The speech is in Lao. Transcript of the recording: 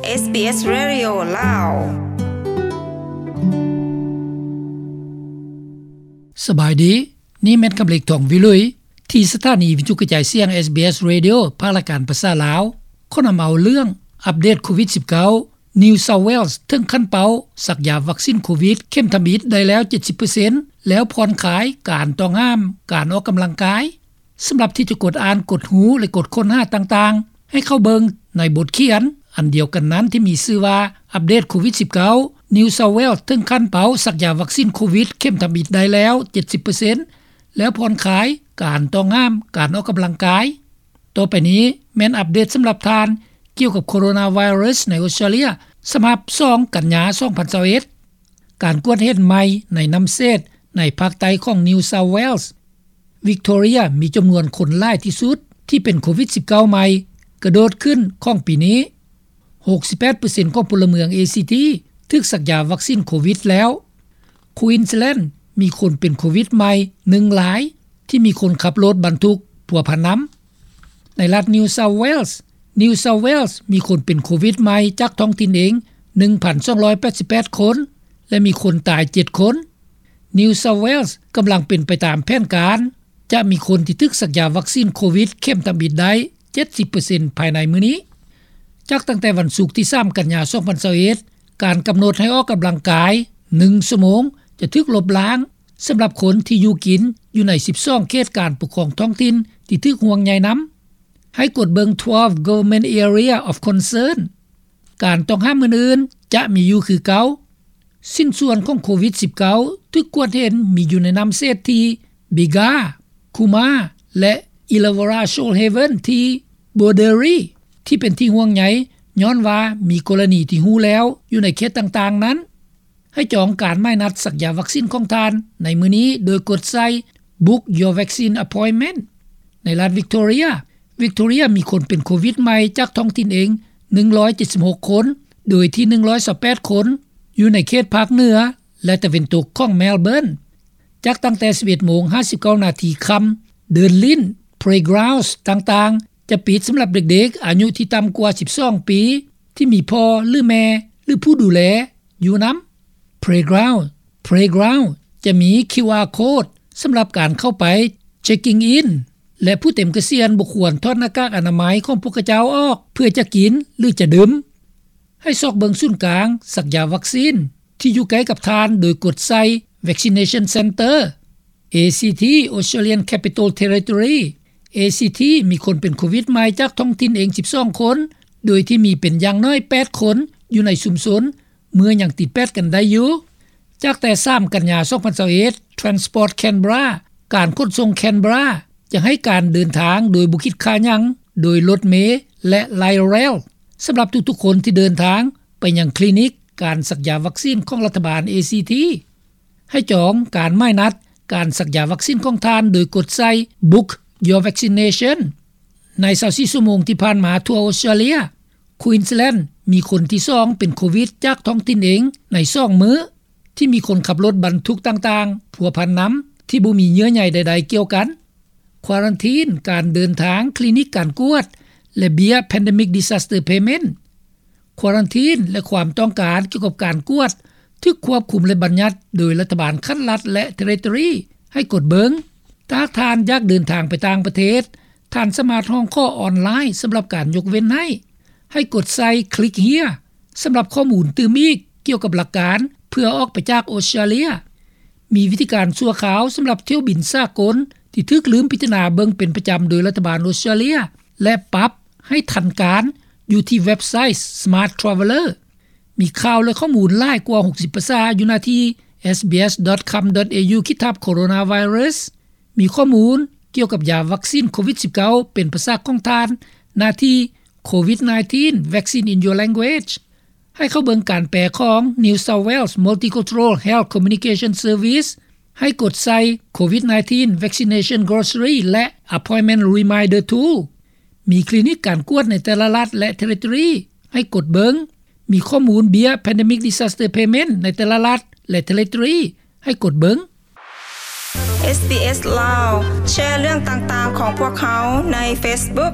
ເອສບີເອສ Radio ລາວ. ສະບາຍດີ, ນີ້ແມ່ນຄຳເລັກ ທອງວິລຸຍ ທີ່ສະຖານີວິທະຍຸກະຈາຍສຽງ ເອສບີເອສ Radio ພາກລາຍການພາສາລາວ ຂໍນຳເອົາເລື່ອງອັບເດດໂຄວິດສິບເກົ້າ New South Wales ເຖິງຂັ້ນເປົ້າສັກຢາວັກຊີນໂຄວິດເຂັມທຳອິດໄດ້ແລ້ວ ເຈັດສິບເປີເຊັນ ແລ້ວຜ່ອນຄາຍການຕ້ອງຫ້າມການອອກກຳລັງກາຍ. ສຳລັບທີ່ຈະກົດອ່ານ, ກົດຮູ້ ແລະ ກົດຄົ້ນຫາຕ່າງໆ ໃຫ້ເຂົ້າເບິ່ງໃນບົດຂຽນອັນດຽວກັນນັ້ນທີ່ມີຊື່ວ່າ ອັບເດດໂຄວິດສິບເກົ້າ New South Wales ເຖິງຂັ້ນເປົ້າສັກຢາວັກຊີນໂຄວິດເຂັມທຳອິດໄດ້ແລ້ວ ເຈັດສິບເປີເຊັນ ແລ້ວຜ່ອນຄາຍການຕ້ອງຫ້າມການອອກກຳລັງກາຍ. ຕໍ່ໄປນີ້ແມ່ນອັບເດດສຳລັບທ່ານ ກ່ຽວກັບໂຄໂຣນາໄວຣັສໃນອົດສະຕຣາເລຍ ສະບັບສອງກັນຍາ ສອງພັນຊາວເອັດ. ການກວດເຫັນໃໝ່ໃນນ້ຳເສດໃນພາກໃຕ້ຂອງ New South Wales, Victoria ມີຈຳນວນຄົນຫຼາຍທີ່ສຸດທີ່ເປັນໂຄວິດສິບເກົ້າໃໝ່ກະໂດດຂຶ້ນຂອງປີນີ້. ຫົກສິບແປດເປີເຊັນຂອງພົນລະເມືອງ ເອຊີທີ ຖືກສັກຢາວັກຊີນໂຄວິດແລ້ວ. Queensland ມີຄົນເປັນໂຄວິດໃໝ່ໜຶ່ງລາຍ ທີ່ມີຄົນຂັບລົດບັນທຸກພົວພັນນຳ. ໃນລັດ New South Wales, New South Wales ມີຄົນເປັນໂຄວິດໃໝ່ຈາກທ້ອງຖິ່ນເອງ ໜຶ່ງພັນສອງຮ້ອຍແປດສິບແປດຄົນ ແລະ ມີຄົນຕາຍເຈັດຄົນ. New South Wales ກຳລັງເປັນໄປຕາມແຜນການ ຈະມີຄົນທີ່ຖືກສັກຢາວັກຊີນໂຄວິດເຂັມທຳອິດໄດ້ ເຈັດສິບເປີເຊັນ ພາຍໃນມື້ນີ້. ຈາກຕັ້ງແຕ່ວັນສຸກທີສາມກັນຍາ ສອງພັນຊາວເອັດ ການກຳນົດໃຫ້ອອກກຳລັງກາຍໜຶ່ງຊົ່ວໂມງຈະຖືກລົບລ້າງ ສຳລັບຄົນທີ່ຢູ່ກິນຢູ່ໃນສິບສອງເຂດການປົກຄອງທ້ອງຖິ່ນທີ່ຖືກຫ່ວງໃຍນຳ. ໃຫ້ກວດເບິ່ງ twelve Government Area of Concern. ການຕ້ອງຫ້າມອື່ນໆຈະມີຢູ່ຄືເກົ່າ. ຊິ້ນສ່ວນຂອງໂຄວິດສິບເກົ້າ ຖືກກວດເຫັນມີຢູ່ໃນນ້ຳເສດທີ່ Bega, Cooma ແລະ Illawarra Shoalhaven ທີ່ Borderi ທີ່ເປັນທີ່ຫ່ວງໃຍ ຍ້ອນວ່າມີກໍລະນີທີ່ຮູ້ແລ້ວຢູ່ໃນເຂດຕ່າງໆນັ້ນ. ໃຫ້ຈອງການໝາຍນັດສັກຢາວັກຊີນຂອງທ່ານໃນມື້ນີ້ໂດຍກົດໃສ່ Book Your Vaccine Appointment. ໃນລັດ Victoria, Victoria ມີຄົນເປັນໂຄວິດໃໝ່ຈາກທ້ອງຖິ່ນເອງ ໜຶ່ງຮ້ອຍເຈັດສິບຫົກຄົນ ໂດຍທີ່ ໜຶ່ງຮ້ອຍຊາວແປດຄົນ ຢູ່ໃນເຂດພາກເໜືອ ແລະ ຕາເວັນຕົກຂອງ Melbourne. ຈາກຕັ້ງແຕ່ ສິບເອັດໂມງ ຫ້າສິບເກົ້ານາທີຄ່ຳ, ເດີ່ນຫຼິ້ນ, playgrounds ຕ່າງໆ ຈະປິດສຳລັບເດັກໆອາຍຸທີ່ຕ່ຳກວ່າ ສິບສອງປີ ທີ່ມີພໍ່ ຫຼື ແມ່ ຫຼື ຜູ້ດູແລຢູ່ນຳ. Playground, playground ຈະມີ QR code ສຳລັບການເຂົ້າໄປ checking in ແລະ ຜູ້ເຕັມກະສຽນບໍ່ຄວນຖອດໜ້າກາກອະນາໄມຂອງພວກຂະເຈົ້າອອກເພື່ອຈະກິນ ຫຼື ຈະດື່ມ. ໃຫ້ຊອກເບິ່ງສູນກາງສັກຢາວັກຊີນທີ່ຢູ່ໃກ້ກັບທ່ານໂດຍກົດໃສ່ Vaccination Centre. ເອຊີທີ Australian Capital Territory, ເອຊີທີ ມີຄົນເປັນໂຄວິດໃໝ່ຈາກທ້ອງຖິ່ນເອງ ສິບສອງຄົນ ໂດຍທີ່ມີເປັນຢ່າງໜ້ອຍ ແປດຄົນ ຢູ່ໃນຊຸມຊົນ ເມື່ອຍັງຕິດແປດກັນໄດ້ຢູ່. ຈາກແຕ່ ສາມກັນຍາ ສອງພັນຊາວເອັດ Transport Canberra, ການຂົນສົ່ງ Canberra ຈະໃຫ້ການເດີນທາງໂດຍບໍ່ຄິດຄ່າຫຍັງ ໂດຍລົດເມ ແລະ Light Rail ສຳລັບທຸກໆຄົນທີ່ເດີນທາງໄປຍັງຄລີນິກການສັກຢາວັກຊີນຂອງລັດຖະບານ ເອຊີທີ. ໃຫ້ຈອງການໝາຍນັດການສັກຢາວັກຊີນຂອງທ່ານໂດຍກົດໃສ່ Book Your Vaccination. ໃນ ຊາວສີ່ ຊົ່ວໂມງທີ່ຜ່ານມາທົ່ວອົດສະຕຣາເລຍ, Queensland ມີຄົນທີສອງເປັນໂຄວິດຈາກທ້ອງຖິ່ນເອງໃນສອງມື້ ທີ່ມີຄົນຂັບລົດບັນທຸກຕ່າງໆພົວພັນນຳ ທີ່ບໍ່ມີເຍື່ອໃຍໃດໆກ່ຽວກັນ. ຄວາຣັນທີນການເດີນທາງ, ຄລີນິກການກວດ ແລະ ເບ້ຍ Pandemic Disaster Payment. ຄວາຣັນທີນ ແລະ ຄວາມຕ້ອງການກ່ຽວກັບການກວດ ຖືກຄວບຄຸມ ແລະ ບັນຍັດໂດຍລັດຖະບານຂັ້ນລັດ ແລະ ເທຣິໂຕຣີ ໃຫ້ກົດເບິ່ງ. ຖ້າຫາກທ່ານຢາກເດີນທາງໄປຕ່າງປະເທດ, ທ່ານສາມາດຮ້ອງຂໍອອນລາຍສຳລັບການຍົກເວັ້ນໃຫ້. ໃຫ້ກົດໃສ່ Click Here ສຳລັບຂໍ້ມູນຕື່ມອີກກ່ຽວກັບຫຼັກການເພື່ອອອກໄປຈາກອົດສະຕຣາເລຍ. ມີວິທີການຊົ່ວຄາວສຳລັບຖ້ຽວບິນສາກົນທີ່ຖືກລືມພິຈາລະນາເບິ່ງເປັນປະຈຳໂດຍລັດຖະບານອົດສະຕຣາເລຍ ແລະ ປັບໃຫ້ທັນການຢູ່ທີ່ເວັບໄຊ Smart Traveller. ມີຂ່າວ ແລະ ຂໍ້ມູນຫຼາຍກວ່າ ຫົກສິບ ພາສາຢູ່ໜ້າທີ່ sbs.com.au ຂີດທັບ coronavirus. ມີຂໍ້ມູນກ່ຽວກັບຢາວັກຊີນໂຄວິດສິບເກົ້າເປັນພາສາຂອງທ່ານ ໜ້າທີ່ COVID nineteen Vaccine in Your Language. ໃຫ້ເຂົ້າເບິ່ງການແປຂອງ New South Wales Multicultural Health Communication Service. ໃຫ້ກົດໃສ່ COVID nineteen Vaccination Glossary ແລະ Appointment Reminder Tool. ມີຄລີນິກການກວດໃນແຕ່ລະລັດ ແລະ ເທຣິໂຕຣີ ໃຫ້ກົດເບິ່ງ. ມີຂໍ້ມູນເບ້ຍ Pandemic Disaster Payment ໃນແຕ່ລະລັດ ແລະ ເທຣິໂຕຣີ ໃຫ້ກົດເບິ່ງ. ເອສບີເອສ ລາວ ແຊເລື່ອງຕ່າງໆຂອງພວກເຮົາໃນ Facebook.